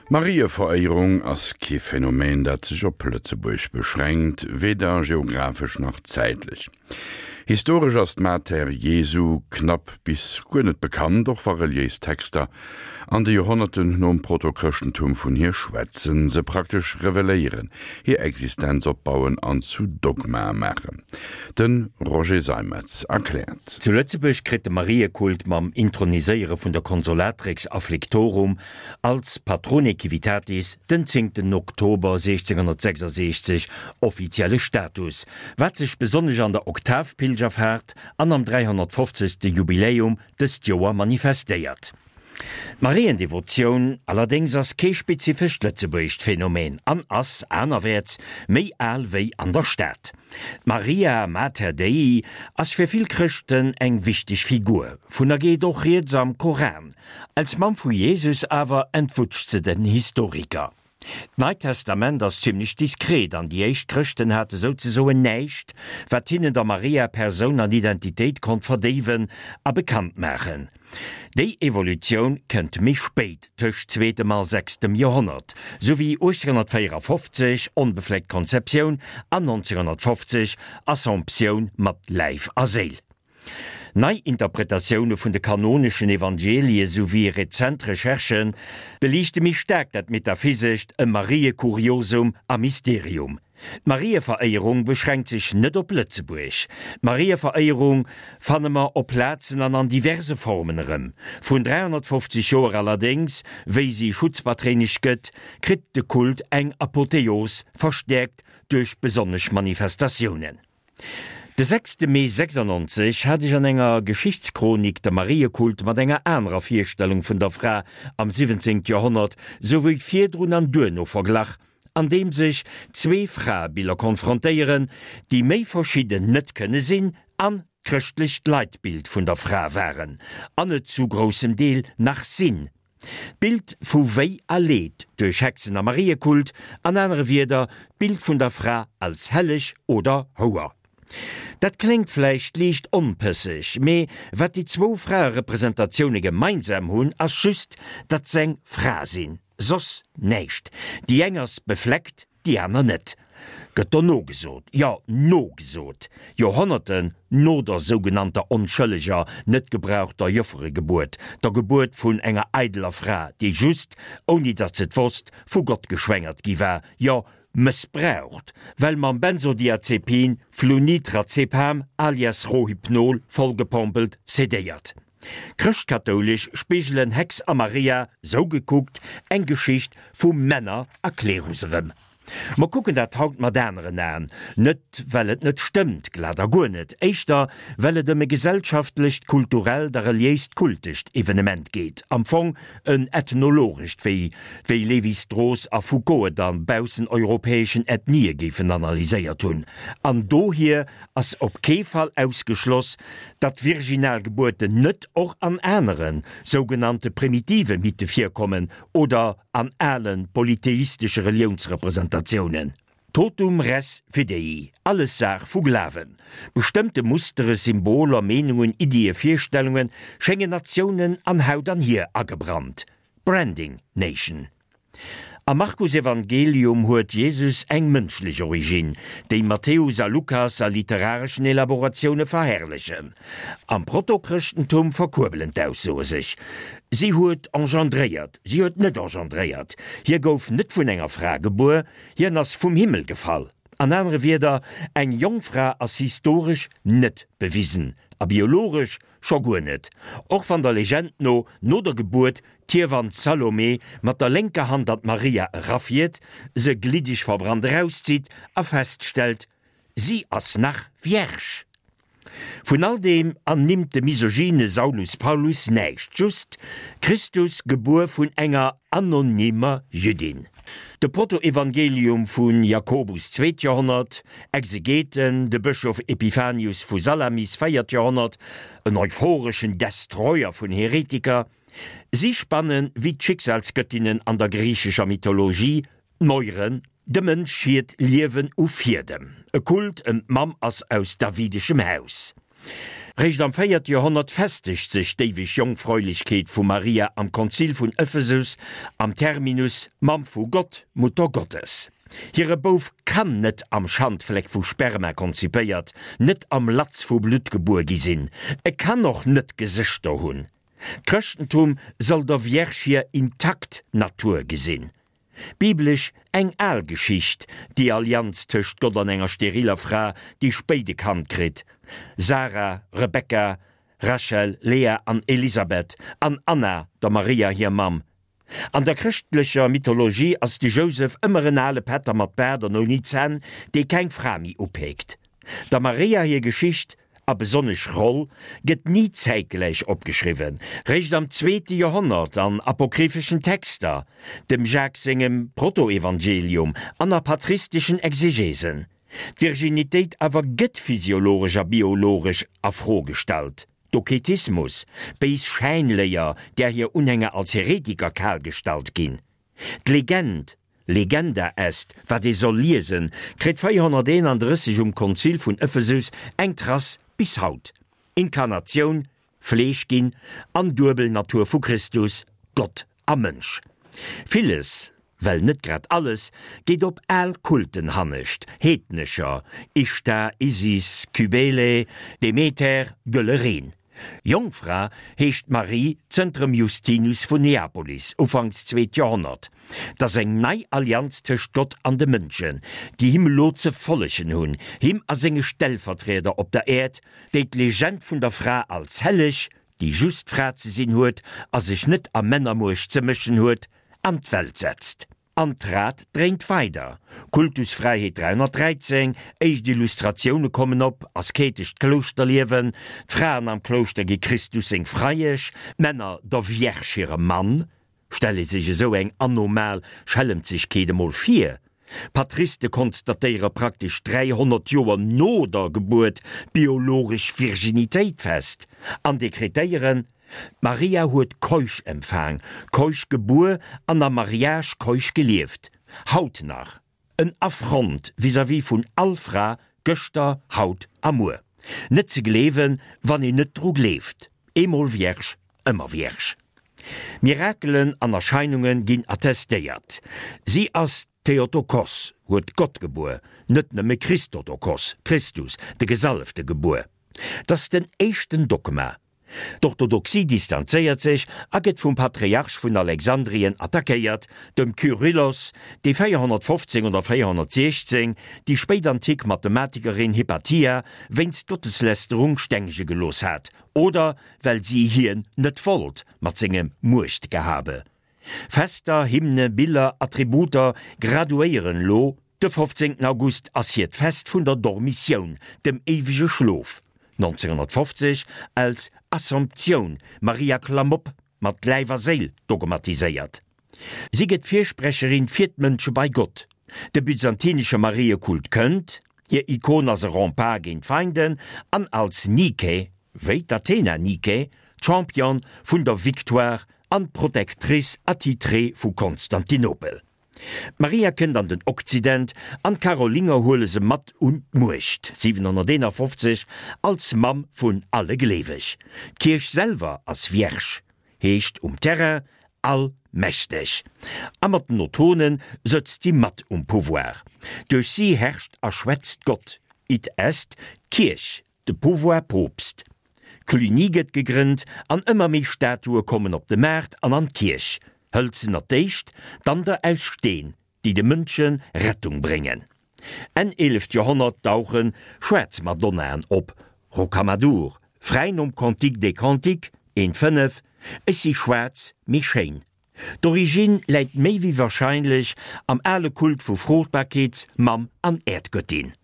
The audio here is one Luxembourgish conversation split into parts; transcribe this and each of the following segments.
D'Marieveréierung ass kee Phänomen, dat sech op Lëtzebuerg beschränkt, weder geographesch nach zäitlech. Historesch ass d'Mater Jesu knapp bis guer net bekannt, och wa reliéis Texter an de Joerhonnerten nom Protochrëschtentum vun hir schwätzen, se praktesch reveléieren, hir Existenz opbauen an zu Dogmae maachen. De Roger Seimetz erkläert. Zu Lëtzebuerg kritt de Mariekult mam Introniséiere vun der Consolatrix Afflictorum als Patrone Civitatis den zéngten Oktober 1666 offizielle Status, wat sech besonnesch an der Oktavpilgerfaart an am 350. Jubiläum dëst Joer manifestéiert. D'Mariendevotioun allerdéngs ass kee spezifescht lëtzebuergescht Phänomen an ass, anerwäerts, méi al wéi an der Stad. D'Maria Mater Dei ass fir vill Chrëschten eng wichteg Figur, vun der geet och rieds am Koran. Als Mamm vu Jesus awer entwutscht se den Historiker. D'Neit Testament ass zimlech diskret an déi éischt Chrëschten hate souzesoen näischt, wat hinnen der Maria Persoun an Identitéit konnt verdéiwen a bekannt maachen. Déi Evolutioun kënnt méi spéit, tëscht zweetem a sechstem Joerhonnert, sou wéi 1854, onbefleckt Konzeptioun, an 1950, Assomptioun mat Läif a Séil. Nei Interpretatioune vun de kanoneschen Evangelie souwéi rezent Recherchë beliichte méi staark dat Metaphysescht ëm Mariekuriosum a Mysterium. D'Marieveréierung beschränkt sech net op Lëtzebuerg. D'Marieveréierung fanne mer op Plazen an an diverse Formen erëm. Vrun 350 Joer allerdéngs, wéi si Schutzpatréinesch gëtt, kritt de Kult eng Apotheos, verstäerkt duerch besonnesch Manifestatiounen. De sechste Mee 96 hat ech an enger Geschichtschronik de Mariekult mat enger anerer Virstellung vun der Fra am 17. Joerhonnert souwéi virdrun an duerno verglach, an deem sech zwee Fraebiller konfrontéieren, déi méi verschidden net kënne sinn an d'chrëschtlecht Leitbild vun der Fra waren an et zu groussem Deel nach sinn. D'Bild vu Wéi a Leed duerch Hexen a Mariekult, an anere Wierder, d'Bild vun der Fra als Helleg oder Houer. Dat kléngt vläicht liicht onpësseg, mee wat déi zwou Fraerepresentatioune gemeinsam hunn, ass just, datt s'eng Fra sinn, soss näischt. Déi eng ass befleckt, Déi aner net. Gëtt do nogesot, jo nogesot, Joerhonnerten no der sougenannter onschëlleger, net gebrauchter Jofferegebuert, der Gebuert vun enger eideler Fra, déi just, ouni datt se et wosst, vu Gott geschwängert gi war, jo mëssbraucht, well mam Benzodiazepin Flunitrazepam alias Rohypnol vollgepompelt, sedéiert. Chrëschtkatoulesch spigelen Hex a Maria, sou gekuckt, eng Geschicht vu Männer a Klerus erëm. Mer kucken dat haut mat aneren Aen, net well et net stëmmt, glat a guer net, éischter well et ëm e gesellschaftlecht, kulturellt a reliéist kultescht Evenement geet, am Fong en ethnologescht, wéi wéi Lévi-Strauss a Foucault et a bausseneuropäeschen Ethnië géifen analyséiert hunn, an dohier ass op kee Fall ausgeschloss, datt virginal Gebuerten net och an anere sougenannte primitive Mythe virkommen oder an ale polytheistesche Reliounsrepresentatiounen. Totum res fidei, alles Saach vu Glawen. Bestëmmte Mustere, Symboler, Meenungen, Iddie, Virstellunge schéngen Natiounen an Haut an Hier agebrannt. Branding Nation. Am Markusevangelium huet Jesus eng mënschlech Originn, déi Matthäus a Lukas a literareschen Elaboratioune verherrlechen. Am Protochrëschtentum verkuerbelen d'Aussoe sech, Si huet engendréiert, si huet net engendréiert, hie gouf net vun enger Fra gebuer, hien ass vum Himmel gefall. An anere Wierder, eng Jongfra ass historesch net bewisen a biologesch scho guer net, och wann der Legend no no der Gebuert d'Hiewann Salome mat der lénker Hand an d'Maria erafiert, se gliddeg verbrannt erauszitt a feststellt, si ass nach vierge. Vun all deem ernimmt de misogyne Saulus Paulus näischt, just, Christus gebuer vun enger anonymer Jüddin. De Protoevangelium vu Jakobus, zweet Joerhonnert, Exegeten, de Bëschof Epiphanius vu Salamis, véiert Joerhonnert, en euphoreschen Destroyer vun Heretiker, Si spannen, wéi d'Schicksalsgöttinnen an der griichescher Mythologie, d'Moiren, dem Mënsch hiert Liewen u Fiedem. E Kult ëm d'Mamm ass aus davideschem Haus. Réischt am véierte Joerhonnert festegt sech d'éiweg Jongfräulechkeet vu Maria am Konzil vun Ephesus am Terminus Mamm vu Gott, Mutter Gottes. Hire Bouf kann net am Schandfleck vu Sperma konzipéiert, net am Latz vu Blutt gebuer gi sinn. E kann och net Gesëschter hunn. D'Chrëschtentum soll der Vierge hir intakt Natur gesinn. Biblesch eng al Geschicht, déi Allianz tëscht Gott an enger steriller Fra, déi spéit e Kand kritt, Sara, Rebekka, Rachel, Lea an Elisabeth, an Anna, der Maria hir Mamm. An der chrëschtlecher Mythologie ass de Jousef ëmmer en ale Pätter mat Baart an ouni Zänn, dee keng Fra méi upeekt. Der Maria hir Geschicht, a besonnesch Roll, gëtt ni zäitgläich opgeschriwwen, réischt am zweete Joerhonnert an apokrypheschen Texter, dem Jacques sengem Protoevangelium an a patristeschen Exegesen. D'Virginitéit awer gëtt physiologesch a biologesch a Fro gestallt. Doketismus, béis Schäinléier, där hir Unhänger als Heretiker kalgestallt ginn. D'Legend, Legenda est, wat ee soll liesen, kritt 431 um Konzil vun Ephesus eng Trace bis haut, Inkarnatioun, Fleesch ginn an duebel Natur vu Christus, Gott a Mënsch. Villes, well net grad alles, geet op al Kulten hannescht, heednescher, Ishtar, Isis, Kybele, Demeter, Gëlle Reen. Jongfra heescht d'Marie zënter dem Justinus vun Neapolis, ufanks zweet Joerhonnert. 't ass eng nei Allianz tëscht Gott an de Mënschen, déi him elo ze follegen hunn, him a senge Stellvertrieder op der Äerd, déi d'Legend vun der Fra als helleg, déi just Fra ze sinn huet a sech net a Männermuecht ze mëschen huet, an d'Welt setzt. An d'Rad dréint weider. Kultusfräiheet 313, éischt Illustratioune kommen op, asketescht Klouschterliewen, d'Fraen am Klouschter gi Christus seng Freiesch, d'Männer der Vierge hire Mann. Stell ee sech esou eng anomal Schellemzegkeet emol vir! Patriste konstatéiere praktesch 300 Joer no der Gebuert d'biologesch Virginitéit fest an dekretéieren, D'Maria huet keusch empfaang, keusch gebuer an am Mariage keusch gelieft. Haut nach en Affront vis-à-vis vun all Fra, gëschter, haut a muer. Net ze gleewen, wann een net dru gleeft. Eemol Vierge, ëmmer Vierge. Mirakelen an Erscheinunge ginn attestéiert. Si ass d'Theotokos, huet Gott gebuer, net nëmme Christotokos, Christus, de Gesalefte gebuer. 't ass den éischten Dogma. D'Orthodoxie distanzéiert sech a gëtt vum Patriarch vun Alexandrien attackéiert, dem Kyrillos, dee 415 oder 416 déi spéitantik Mathematikerin Hypatia wéinst Gotteslästerung stengege gelooss hat, oder well si hien net wollt mat sengem Muechtgehabe. Fester, Hymne, Biller, Attributer graduéieren lo. De 15 August ass hiert Fest vun der Dormitioun, dem éiwege Schlof. 1950 als Assomptioun, Maria Klamm op, mat Läif a Séil dogmatiséiert. Si gëtt Firsprecherin fir d'Mënsche bei Gott. De byzantinesche Mariekult kënnt, hir Ikon ass e Rempart géint d'Feinden an als Nike, wéi d'Athena Nike, Championne vun der Victoire an d'Protectrice attitrée vu Konstantinopel. D'Maria kënnt an den Okzident an d'Karolinger huele se mat un d'Muecht, 751, als Mamm vun alle Gleeweg. D'Kierch selwer ass Vierge, heescht um Terrain allmächteg. A mat den Ottonen sëtzt si mat um Pouvoir. Duerch si herrscht a schwätzt Gott, id est d'Kierch, de Pouvoir Poopst. Cluny gëtt gegrënnt an ëmmer méi Statue kommen op de Maart an an d'Kierch, hëlzener d'éischt, dann der aus Steen, déi de Mënsche Rettung bréngen. Enn eeleft Joerhonnert dauche schwaarz Madonnaen op, Rocamadour, fräi nom Cantique des Cantiques 1, 5, Ech si schwaarz, mee schéin. D'Origine läit méi wéi warscheinlech am ale Kult vu Fruchtbarkeets-, Mamm an Äerdgöttin.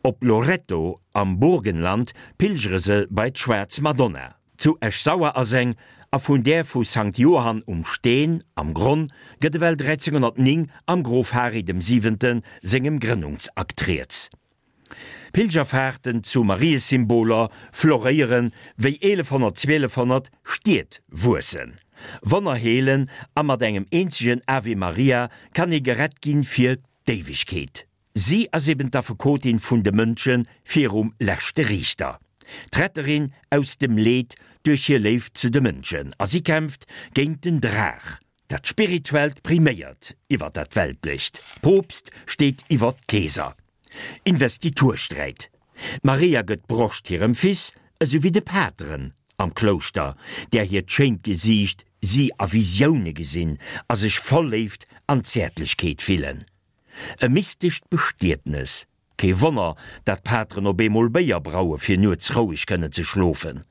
Op Loretto am Burgenland pilgere se bei d'Schwaarz Madonna. Zu Esch-Sauer ass eng, a vun där vu Sankt Johann um Steen am Gronn gëtt ewell 1309 am Grof Hari dem Siwente sengem Grënnungsakt rieds. Pilgerfahrten zu Mariesymboler floréieren, wéi 1100, 1200 Stied wuessen, Wonner heelen a mat engem eenzegen Ave Maria kann ee gerett ginn fir d'Éiwegkeet. Si ass eben d'Affekotin vun de Mënsche virum leschte Riichter. D'Retterin aus dem Leed duerch hir Léift zu de Mënschen, a si kämpft géint den Draach. Dat Spirituellt priméiert iwwer dat Weltlecht, Poopst steet iwwer Keeser. Investitursträit. D'Maria gëtt d'Broscht hirem Fils, esou wéi de Pateren am Klouschter, där hiert schéint Gesiicht si a Visioune gesinn a sech voll Léift an Zäertlechkeet fillen. E mystescht Bestietnes. Kee Wonner, dat d'Pateren op eemol Béier braue fir nuets roueg kënnen ze schlofen.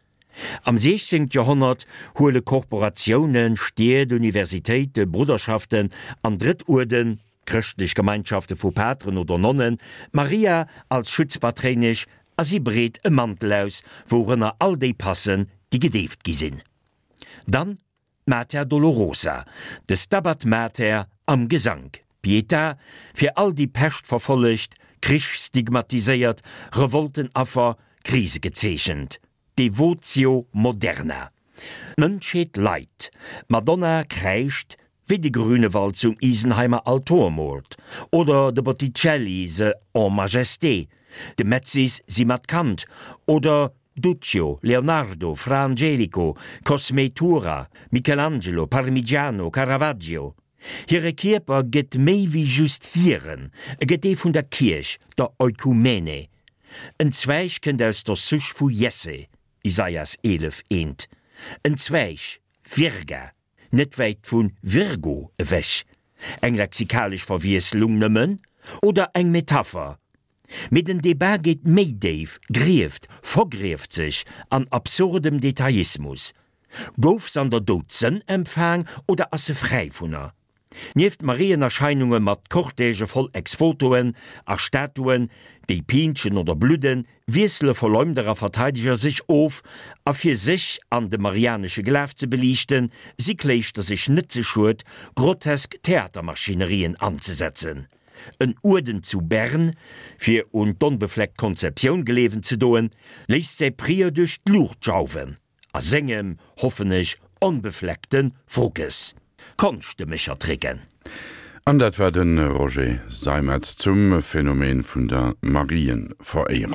Am 16. Joerhonnert huele Korporatiounen, Stied, Universitéite, Brudderschaften an Drëttuerden, chrëschtlech Gemeinschafte vu Pateren oder Nonnen, d'Maria als Schutzpatréinesch a si breet e Mantel aus, wourënner all déi passen, déi gedeeft gi sinn. Dann d'Mater Dolorosa, de Stabat Mater am Gesank, Pietà, fir all déi Peschtverfollegt, Krichstigmatiséiert, Revoltenaffer, Krisegezeechent, Devotio moderna. D'Mënschheet leit, d'Madonna kräischt, wéi de Grünewald zum Isenheimer Altor moolt, oder de Botticelli se en Majesté, de Metsis si mat Kand, oder Duccio, Leonardo, Fra Angelico, Cosmé Tura, Michelangelo, Parmigiano, Caravaggio. Hire Kierper gëtt méi wéi just hiren, e gëtt dee vun der Kierch, der Oikumene. En Zweig kënnt aus der Souche vu Jesse, Isaias 11, 1. En Zweig, Virga, net wäit vu Virgo ewech. Eng lexikalesch Verwiesslung nëmmen oder eng Metapher? Mee den Debat geet méi déif, grieft, vergrieft sech an absurdem Detailismus. Gouf s'an der Doudsënn empfaang oder ass se fräi vun er? Nieft Marienerscheinunge mat Cortègë voll Ex-Votoen a Statuen, déi piintschen oder bludden, wiessele Verleumder a Verteideger sech of, a fir sech an de marianesche Glaf ze beliichten, si Kléischter sech net ze schued, grotesk Theatermaschinerien anzesetzen. En Uerden zu Bern, fir un d'onbefleckt Konzeptioun gleewen ze doen, léisst säi Prieur duerch d'Luucht jauwen, a sengem, hoffen ech, onbefleckte Fruckes. Konschtmechertricken. An dat war de Roger Seimetz zum Phänomen vun der Marienveréierung.